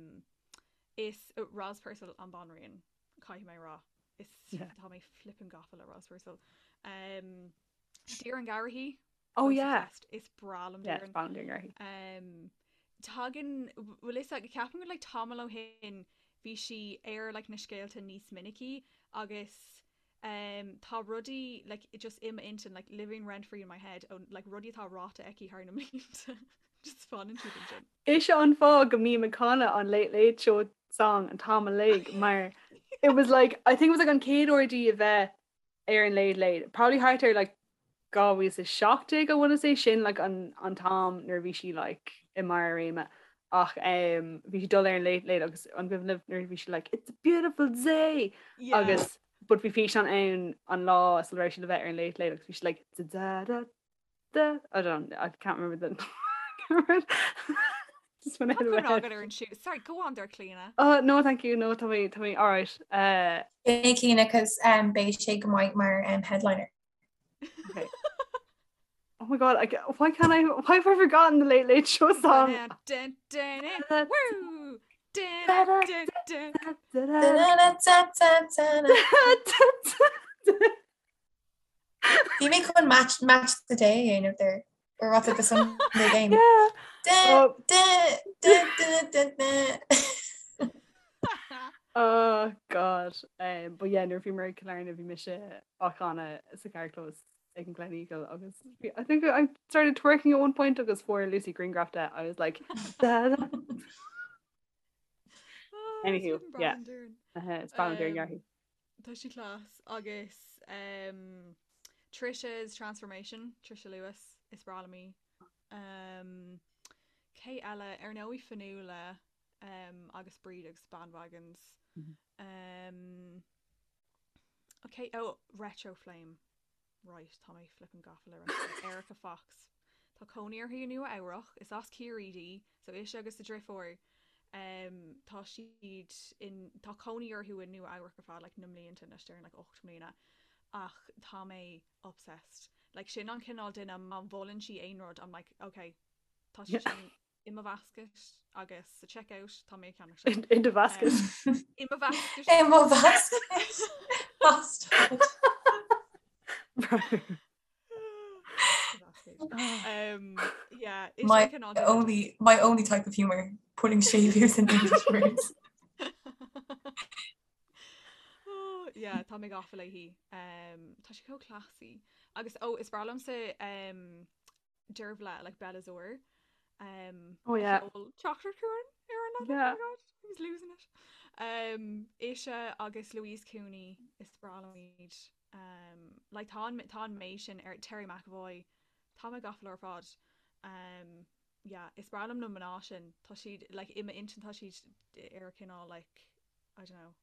is Roz Purcell an banríon caithfidh mé rá. Is tá mé flippin gafa le Roz Purcell. Um, Doireann Garrihy. Oh yeah. Is breá liom Doireann. Yeah, Doireann Garrihy. Um, tagann bhfuil fhios ag ceapaim go like tamall ó shin bhí sí ar like na scéalta níos minicí agus um, tá rudaí like just i m'intinn like living rent free in my head ó like rudaí atá ráite aici thar na mblianta just fanann siad ansin. Is é an fáth go mbím ag canadh an Late Late Show song an t-am uilig mar it was like I think it was like an chéad uair di a bheith ar an Late Late probably thart ar like 2017 I wanna say sin like an an t-am nuair a bhí sí like i mbarr a réime ach um, bhí sí dul ar an Late Late agus an cuimhin libh nuair a bhí sí like it's a beautiful day yeah. agus but bhí físeán ann an lá sula raibh sí le bheith ar an Late Late agus bhí sí like da da da da I don't I can't remember the. Just went out of my head. Agat ar an siú. Sorry, go on there, Clíona. Oh, no, thank you. No, tá mé, tá mé, all right. Uh, Hey Clíona, cos um, beidh sé go maith mar um, headliner. okay. Oh my god, I, why can't I, why have I forgotten the Late Late Show song? Dun, dun, dun, woo! Dun, dun, dun. Bhí mé chun match match the day a dhéanamh there or what's it the Sunday game. Yeah. Dun, Oh. dun, dun, dun, dun, dun. Oh god. Um, but yeah, nuair a bhí mé i Killarney bhí mise á chanadh sa carrchlós ag an Gleneagle agus bhí- I think I started twerking at one point agus fuair Lucy grianghraf de. I was like da, da. Oh, Anywho, it's yeah. Brian Dern. Uh, it's Brian Dern Um, Yarhi. Tá sí class agus um, Trisha's Transformation, Trisha Lewis, is breá liom í. Um, cé eile ar ndóigh Fionnuala um, agus Bríd agus Bandwagons. Mhm. Um, okay, oh, Retro Flame. Right, tá mé flippin' gafa le Retro. Erica Fox. Tá cónaí uirthi i Nua Eabhrach, is as Ciarraí di, so ise agus a driofúr um, tá siad in tá cónaí orthu i Nua Eabhrach ar feadh like, na mblianta anois déarfainn like, 8 mbliana ach tá mé obsessed. Like, sin an cineál duine má mholann sí aon rud, I'm like, okay, tá sé Yeah. sin i mo basket agus sa checkout tá mé ag ceannach sin. In, in the basket. Um, i mo basket. I mo basket. Bastard. Right. Basket. Um, yeah, is My sin cineál duine only my only type of humor, putting séimhiús in English words. Oh, yeah, tá mé gafa léi. Um, tá sí chomh classy. Agus oh, is breá liomsa um, Dearbhla like Bella Zor. Um, Oh, yeah. Teachtar chuan ar an Yeah. Oh my God, I was losing it. Um, ise agus Louise Cooney is breá liom iad. Um, like tá an tá an méid sin ar Terry McAvoy Tá mé gafa leo ar fad. Um, yeah, is breá liom na mná sin tá siad like i m'intinn tá siad ar cineál like I don't know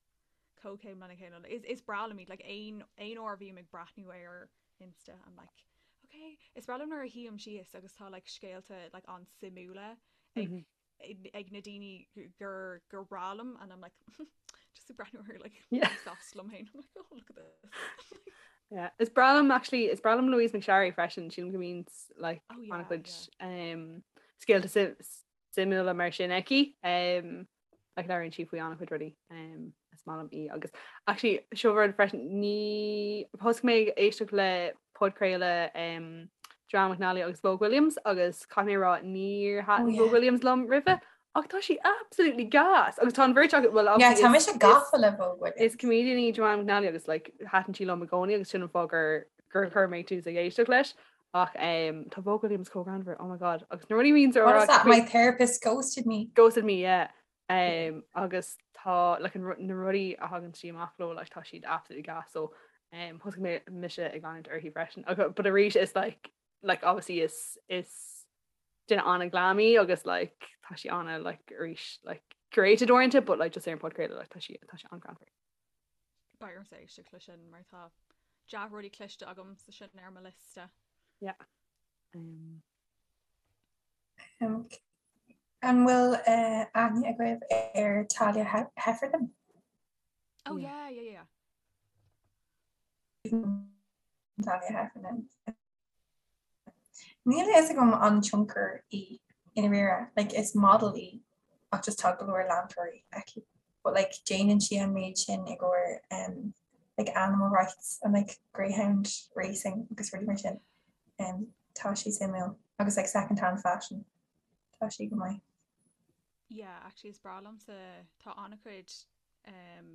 comhchéim lena chéile. Is is breá liom iad like aon aon uair a bhím ag breathnú ar Insta I'm like okay is breá liom nuair a shuím síos agus tá like scéalta like an-suimiúla ag Mhm. ag ag na daoine gur gur breá liom and I'm like just ag breathnú ar like Yeah. sásta liom féin I'm like oh look at this. Yeah. Is breá liom actually is breá liom Louise McSharry freisin sílim go mbíonn like Oh yeah, an-chuid yeah. um, scéalta sim- suimiúla mar sin aici um, like labhraíonn sí faoi an-chuid rudaí um, is maith liom í agus actually seo rud freisin ní thosaigh mé ag éisteacht le podchraoladh um, Joanne McNally agus Vogue Williams agus caithfidh mé a rá níor Oh thaitin yeah. Vogue Williams liom roimhe ach tá sí absolutely gas agus tá an bheirt acu well Yeah, obviously tá is mise is gafa le Vogue is Williams. comedian í Joanne McNally agus like thaitin sí liom i gcónaí agus sin an fáth gur gur chuir mé tús ag éisteacht leis ach um, tá Vogue Williams chomh greannmhar oh my god agus na rudaí a bhíonns á What rá is that? faoi My therapist ghosted me. ghosted me yeah um, agus tá like, an, na rudaí a thagann sí amach leo like, tá siad absolutely gas so um, thosaigh mé mise ag leanúint uirthi freisin agus but arís is like like obviously is is duine an-ghlam í agus like tá sí ana like arís like curated oriented but like just ar an podchraoladh like tá sí tá sí an-ghreannmhar. Beidh ormsa éisteacht leis sin mar tá dea-rudaí cloiste agam sa sin ar mo liosta. Yeah. Um, Um, an bhfuil uh, aithne agaibh ar Talia He Heffernan? Oh yeah. yeah, yeah, yeah. Talia Heffernan. Níl a fhios agam an tionchar í i ndáiríre, like is model í ach just tá go leor leantóirí aici. But like déanann sí an méid sin i gcomhair um, like animal rights and like greyhound racing agus rudaí mar sin. Um, tá sí suimiúil agus like second hand fashion. Tá sí go maith. Yeah, actually is breá liomsa tá an-chuid um,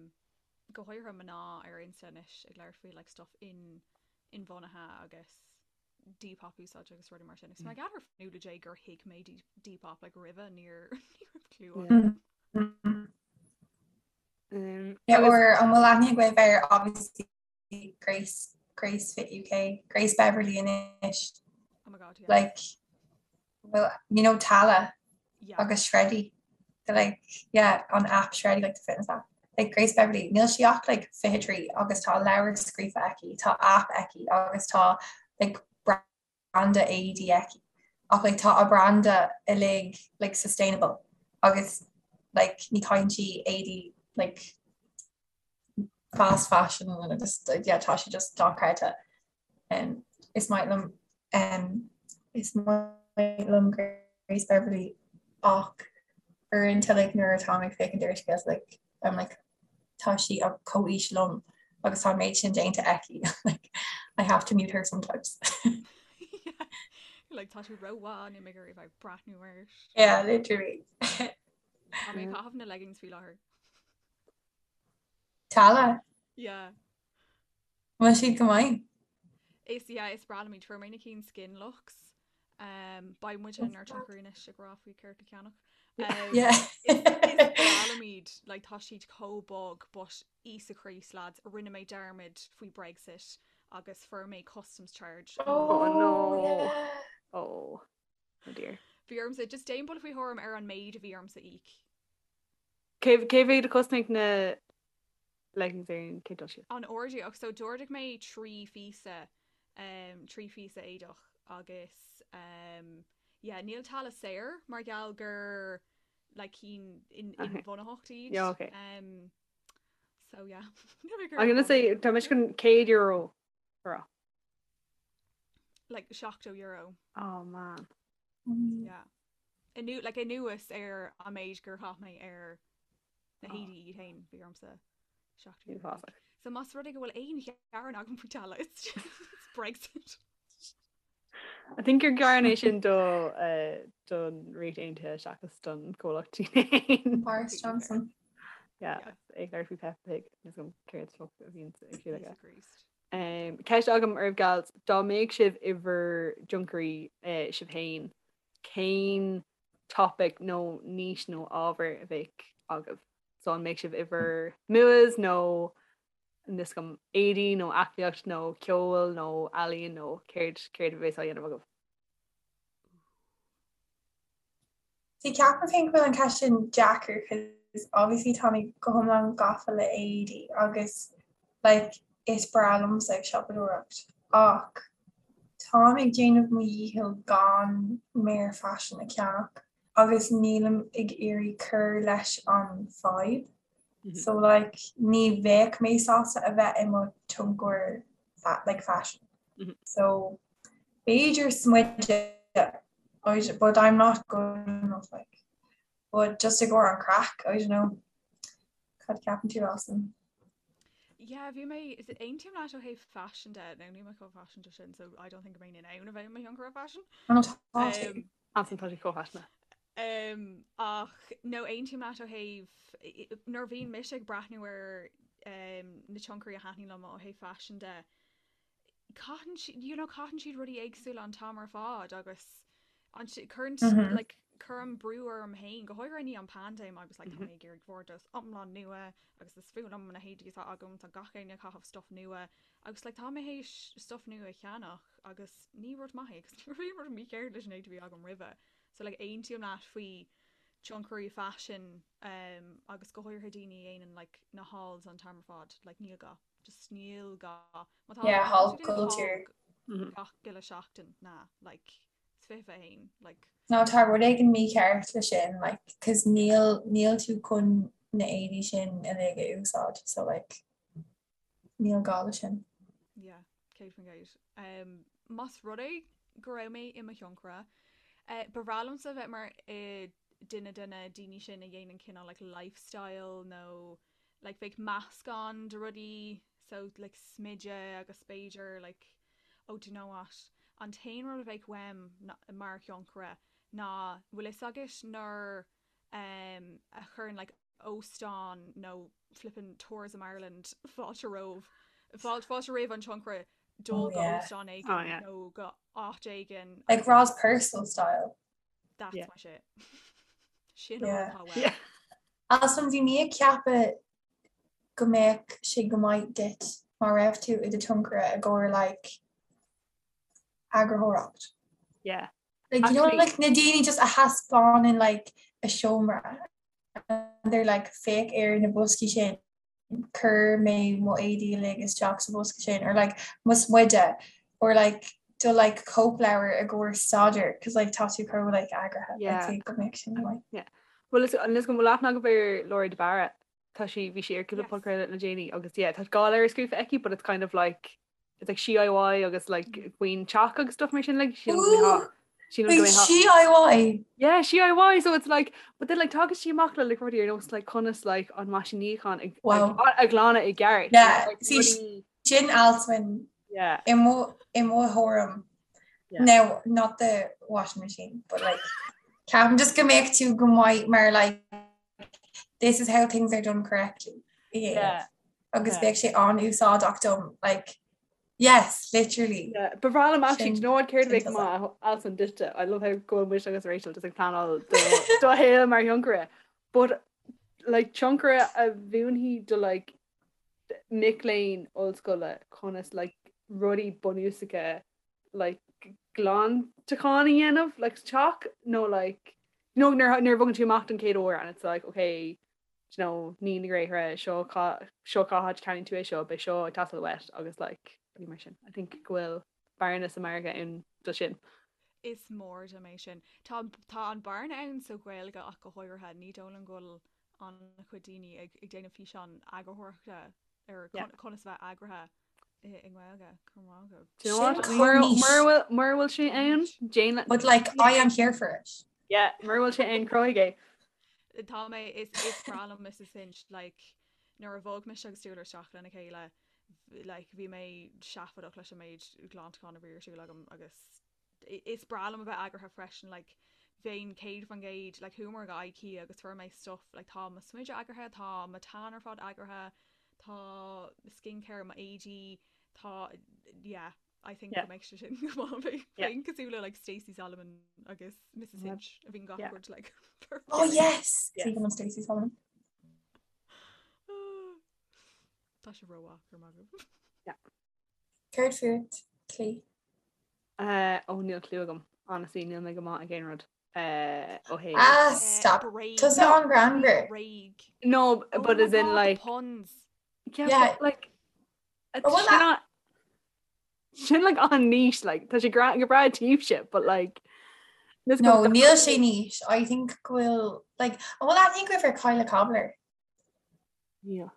go háirithe mná ar Insta anois ag labhairt faoi like stuff in inbhuanaithe agus Depop úsáid agus rudaí mar sin. Is mar gheall ar Fionnuala J gur thuig mé Depop like roimhe níor ní raibh clue Yeah. agam. Mm. Um, Yeah, agus or an bhfuil aithne agaibh ar obviously Grace Grace Fit UK, Grace Beverley anois. Oh my god, yeah. Like well, you know Tala Yeah. agus Shreddy. They're like yeah, on app Shreddy like the fitness app. Like Grace Beverley, níl sí ach like 23 agus tá leabhar scríofa aici, tá app aici agus tá like branda éadaí aici. Ach like tá a branda uilig like sustainable agus like ní chaitheann sí éadaí like fast fashion and just yeah tá sé just dochreidte. Um, is maith liom um, is maith liom Grace Beverley ach uaireanta like nuair atá mé ag féachaint ar a scéalta like I'm like tá sí ar comhaois liom agus tá an méid sin déanta aici like I have to mute her sometimes. Yeah. Like tá tú rómhaith níl mé ag iarraidh bheith breathnú air. Yeah, literally. Tá mé ag caitheamh na leggings faoi láthair. Tala? Yeah. Bhfuil siad go maith? Is yeah, is breá liom iad. Fuair mé na cinn Skinluxe. Um, beidh muid inár dtionchairí anois ag rá faoi céard le ceannach. Um, Yeah. is, is breá liom iad, like, tá siad chomh bog, but Íosa Críost lads, rinne mé dearmad faoi Brexit agus fuair mé customs charge. Oh no. yeah. Oh. Oh dear. Bhí ormsa, just déan buille faoi thuairim ar an méid a bhí ormsa íoc. Cé cé mhéad a chosnaigh na leggings ar an chéad dul síos? An-ard ach so d'ordaigh mé 3 phíosa um, 3 phíosa éadach agus um, yeah, níl Tala saor mar gheall gur like cinn in, Okay. inbhuanaitheacht iad. Yeah, okay. Um, so yeah. I'm gonna say tá mise chun €100 a rá. Like €70. Oh man. Mm. Yeah. Anu, like anuas ar an méid gur chaith mé ar na héadaí iad féin bhí ormsa €70. Uafásach. So más rud é go bhfuil aon ghearán agam faoi Tala, it's just it's Brexit. I think gur gearán é sin do uh, don Ríocht Aontaithe seachas don comhlacht féin. Boris Johnson. Yeah, Yeah. ag labhairt faoi Peppa Pig is an céard fuck a bhíonn ag siúl aige. Íosa Críost. Um, ceist agam oraibh gals, dá mbeadh sibh i bhur dtionchairí uh, sibh féin, cén topic nó niche nó ábhar a bheadh agaibh? So an mbeadh sibh i bhur MUAs nó níl a fhios agam éadaí nó aclaíocht nó ceol nó ealaíon nó céard céard a bheas á dhéanamh agaibh? See ceapaim féin go bhfuil an ceist sin deacair cos obviously tá mé go hiomlán gafa le éadaí agus like is breá liomsa ag siopadóireacht ach táim ag déanamh mo dhícheall gan méar faisin a cheannach agus nílim ag iarraidh cur leis an fadhb so like ní bheadh mé sásta a bheith i mo tionchar like fashion so B'fhéidir smideadh, but I'm not good enough like. But just i gcomhair an craic, I don't know. Cad ceapann tú Alison? Yeah, bhí mé is aontaím leat ó thaobh fashion de, now níl mé chomh faiseanta sin, so I don't think go mbeinn in ann a bheith i mo thionchaire fashion. Oh no, tá tú. Um, Alison tá sí chomh faiseanta. Um, ach no aontaím leat ó thaobh nuair a bhíonn mise ag breathnú ar um, na tionchairí a thaitníonn liom ó thaobh fashion de, caitheann siad you know caitheann siad rudaí éagsúla an t-am ar fad agus an cuireann mm -hmm. like cuirim brú orm féin go háirithe i ndiaidh an paindéim agus like, tá mé ag iarraidh vardrús iomlán nua agus is fuath liom na héadaí atá agam tá gach éinne ag caitheamh stuff nua agus like, tá mé théis stuff nua a cheannach agus ní rud maith é agus ní raibh rud mícheart leis an éadaí a bhí agam roimhe so like aontaím leat faoi tionchairí faisin um, agus go háirithe daoine a dhéanann like, na hauls an t-am ar fad like, níl gá. Just níl gá. Má tá Yeah, má tá haul tú ag déanamh culture. haul gach uile seachtain, ná, like, is 21, like. No, tá rud éigin mícheart le sin, like, 'cause níl, níl tú chun na éadaí sin uilig a úsáid, so like, níl gá le sin. Yeah, 100%. Um, más rud é go raibh mé i mo thionchaire, eh, ba bhreá liomsa bheith mar eh, duine de na daoine sin a dhéanann cineál like lifestyle nó like bheadh meascán de rudaí so like smideadh agus b'fhéidir like oh do you know what an t-aon rud a bheadh uaim mar thionchaire ná bhfuil fhios agat nuair um a chuireann like óstán nó flippin Tourism Ireland fáilte romh fáilte fáilte roimh an tionchaire dul Oh go yeah. óstán Oh éigin yeah. nó go áit éigin Like agus Roz Purcell style. That's Yeah. my shit. Sin an Yeah. rud atá uaim. Yeah. Alison, bhí mé ag ceapadh go mbeadh sé go maith duit má raibh tú i do tionchaire i gcomhair like eagarthóireacht. Yeah. Like you know Actually- like na daoine just a thaispeánann like a seomra and they're like féach ar na boscaí sin chuir mé mo éadaí uilig isteach sa bhosca sin or like mo smideadh or like. do like cóipleabhar i gcomhair staidéir cos like tá tú chomh like eagraithe Yeah. I'd say go mbeadh sin like Yeah. Well is an is go bhfuil aithne agaibh ar Laura de Barra tá sí bhí sí ar cúpla Yes. podchraoladh le déanaí agus yeah tá dhá leabhar scríofa aici but it's kind of like it's like DIY agus like faoin teach agus stuff mar sin like sílim go mbeadh- Ooh, sílim go wait, mbeadh- DIY Yeah, DIY so it's like but then like tagann sí amach le like rudaí ar nós like conas like an meaisín níocháin ag Wow. a ghlanadh i gceart. Yeah, Like, see, rudaí- sin Alswyn yeah. i mo i mo thuairim Yeah. Now, not the washing machine, but like ceapaim just go mbeadh tú go maith mar like this is how things are done correctly. Yeah. Agus Yeah. bheadh sé an-úsáideach dom like yes, literally. Yeah, ba bhreá liom actually, Sin- do you know what céard a sin bheadh tusa. maith Alswyn duitse? I love how go bhfuil mise agus Rachel just ag pleanáil do do shaol mar thionchaire. But like tionchaire a mhúinfidh do like mic léinn ollscoile conas like rudaí bunúsacha like glantachán a dhéanamh like sa teach nó like you know nuair nuair a bhogann tú amach don chéad uair and it's like okay do you know ní na gréithre seo cá seo cá háit a cheannaíonn tú é seo beidh seo ag teastáil uait agus like rudaí mar sin. I think go bhfuil bearna sa margadh ann do sin. Is mór dom é sin. Tá tá an bearna ann sa Ghaeilge ach go háirithe. Ní dóigh liom go bhfuil an-chuid daoine ag ag déanamh físeán eagarthóireachta ar Yeah. conas a bheith eagraithe i i nGaeilge. Go raibh maith agat. Do you know what? Sin Mura chomh niche. mura bhfuil mura bhfuil sé ann, déan But like I am here for it. Yeah, mura bhfuil sé ann cruthaigh é. Tá mé is is breá liom Mrs Hinch like nuair a bhog mise agus Stuart isteach lena chéile like bhí mé seafóideach leis an méid glantachán a bhí ar siúl agam agus is breá liom a bheith eagraithe freisin like bheinn 100% like chuamar go IKEA agus fuair mé stuff like tá mo smideadh eagraithe tá mo tan ar fad eagraithe tá skincare mo éadaí tá yeah I think Yeah. go mbeidh sé sin go maith bheinn Yeah. bheinn cosúil le like Stacey Solomon agus Mrs Yeah. Hinch a bhíonn gach Yeah. rud like Oh yes! Yes. Even Stacey Solomon. Tá sé rómhaith go raibh maith agat. Céard fút, Clí. Uh, ó níl clue agam. Honestly, níl mé go maith ag aon rud. Uh, ó thaobh. Ah, Eh, stop. Bréag. Tusa an-ghreannmhar. Bréag. No, Oh but my as in God, the like puns. yeah, Yeah. but, like Oh, well, sin an- sin like an-niche like tá sé gra go breá daoibhse but like this No, goes- níl sé niche. I think go bhfuil like oh, well, I think we've Kyla Cobbler. Yeah.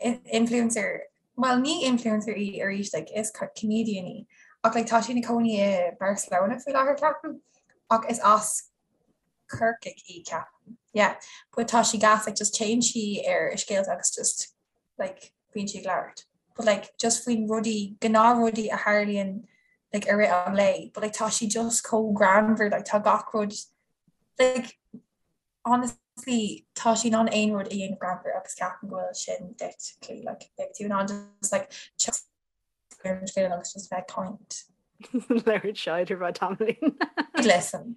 in- influencer well ní influencer í arís like is comedian í ach like tá sí ina cónaí i Barcelona faoi láthair ceapaim ach is as Corcaigh í ceapaim yeah but tá sí gas like just téann sí ar a scéalta agus just like bíonn sí ag labhairt but like just faoin rudaí gnáthrudaí a tharlaíonn like i rith an lae but like tá sí just chomh greannmhar like tá gach rud like honestly tá sí in ann aon rud a dhéanamh greannmhar agus ceapaim go bhfuil sin duit Clí like beidh tú in ann just like teacht ar an scéal agus just bheith ag caint. Labhairt shite ar feadh tamaillín. Listen.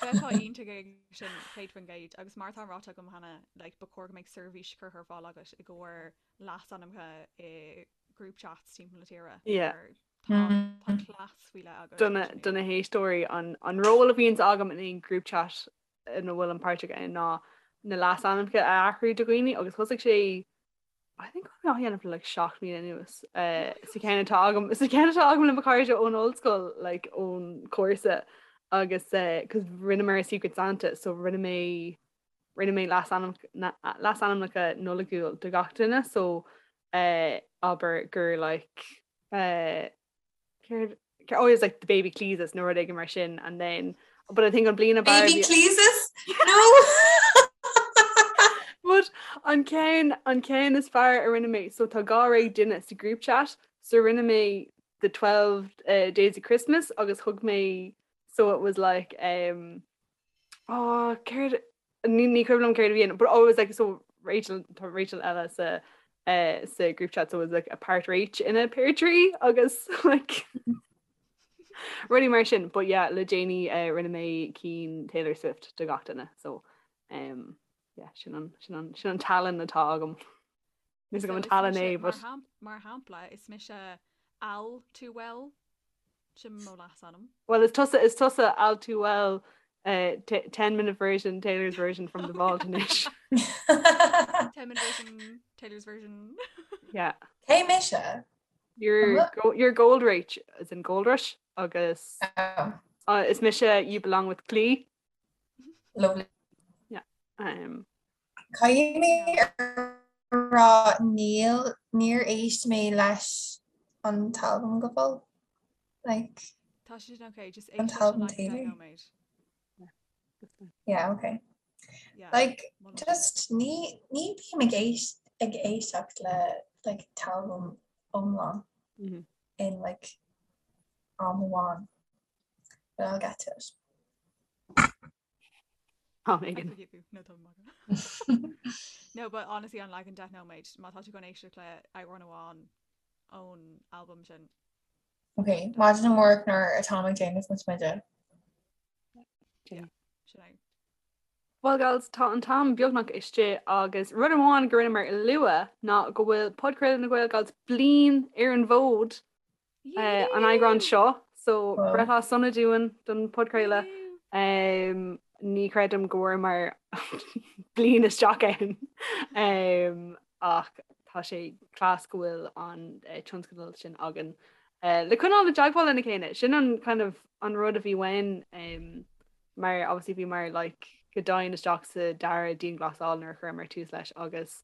Bheifeá iontach ag sin 100% agus mar atá ráite agam cheana like ba chóir go mbeadh seirbhís curtha ar fáil agat i gcomhair leasainmneacha i group chats timpeall na tíre. Yeah. Mar Tá tá cleas faoi leith agat. Do na do na héisteoirí an an ról a bhíonns agam in aon group chat ina bhfuilim páirteach ann ná na leasainmneacha a athrú do dhaoine agus thosaigh sé I think á dhéanamh le like 7 mbliana anuas sa cheann atá agam sa cheann atá agam le mo chairde ón ollscoil like ón cúrsa agus cos rinneamar Secret Santa so rinne mé rinne mé leasainmneacha Nollaigiúil do gach duine so abair gur like Céard oh it's like the baby Cleesus nó rud éigin mar sin and then but I think an bliain ab fhearr Baby Cleesus? No! But an ceann an ceann is fearr a rinne mé so tá 12 duine sa group chat so rinne mé the 12 uh, days of Christmas agus thug mé so it was like um oh céard Ní ní cuimhin liom céard a bhí ann, but oh it was like so Rachel tá Rachel eile sa eh, sa group chat so it was like a part Rach in a pear tree agus like rudaí mar sin but yeah le déanaí eh, rinne mé cinn Taylor Swift do gach duine so um, yeah sin an sin an sin an tallann atá agam. Níl a fhios agam So an is tallann mise é mar but mar shampla is mise Al too well Sin mo leasainm. Well is tusa is tusa all too well uh, 10 minute version Taylor's version from the vault anois. 10 minute version Taylor's version. Yeah. Cé mise? You're, go, you're Gold Rach as in Gold Rush agus oh. uh, is mise You Belong With Glee. Lovely. Yeah. Um, Caithfidh mé rá níl níor éist mé leis an t-albam go fóill. Like, Tá sé sin okay, just An éist leis an t-albam like Taylor. nóiméad. Yeah, okay. Yeah. Like, Molaim. just ní ní bím ag éist ag éisteacht le like t-albam iomlán Mhm. in like am amháin. But I'll get to it. Am I éigin. forgive you. No, tá maith. No, but honestly an leagan 10 nóiméad, má tá tú chun éisteacht le amhrán amháin ón albam sin. Ok, maidin amárach nuair atáim ag déanamh mo smideadh. Yeah, sin é. Well gals, tá an t-am beagnach istigh agus rud amháin go rinneamar a lua ná go bhfuil podchraoladh na Gael Gals bliain ar an bhfód an eagrán seo, so breithlá sona dúinn don podchraoladh. Ní chreidim go bhfuaireamar bliain isteach ann ach tá sé class go bhfuil an tionscadal sin againn le coinneáil i dteagmháil lena chéile. Sin an kind of an rud a bhí uainn mar obviously bhíomar like go domhain isteach sa dara dianghlasáil nuair a chuireamar tús leis agus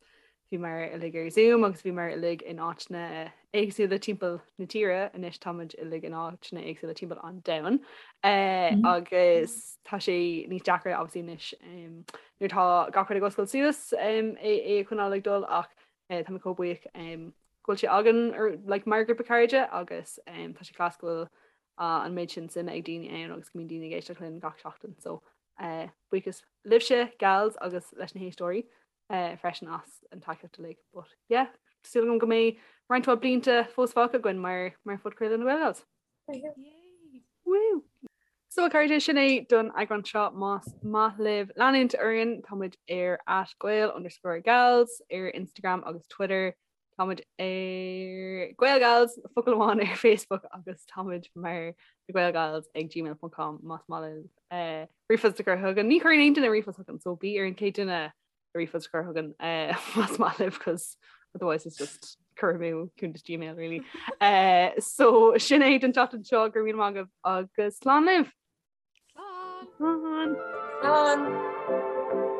bhíomar uilig ar Zoom agus bhíomar uilig in áiteanna éagsúla timpeall na tíre, anois táimid uilig in áiteanna éagsúla timpeall an domhain agus tá sé níos deacra obviously anois nuair atá gach rud ag oscailt suas é a choinneáil ag dul ach tá mé chomh buíoch go bhfuil sé againn like mar ghrúpa cairde agus tá sé class go bhfuil an méid sin suime ag daoine ann agus go mbíonn daoine ag éisteacht linn gach seachtain so buíochas libhse gals agus leis na héisteoirí. freisin as an tacaíocht uilig. But yeah, súil agam go mbeidh roinnt mhaith blianta fós fágtha againn mar mar phodchraoladh na Gael Gals. Woo! So a chairde, sin é don eagrán seo más maith libh leanúint orainn, táimid ar at gael underscore gals ar Instagram agus Twitter. Táimid ar Gael Gals focal amháin ar Facebook agus táimid mar na Gael Gals ag gmail.com más maith libh eh, ríomhphost a chur chugainn. Ní chuireann aon duine ríomhphost chugainn, so bí ar an chéad duine ríomhphost a chur chugainn eh, más maith libh cos otherwise it's just cur amú cuntas Gmail really. Eh, so sin é don tseachtain seo go raibh míle maith agaibh agus slán libh! Slán! Slán! Slán!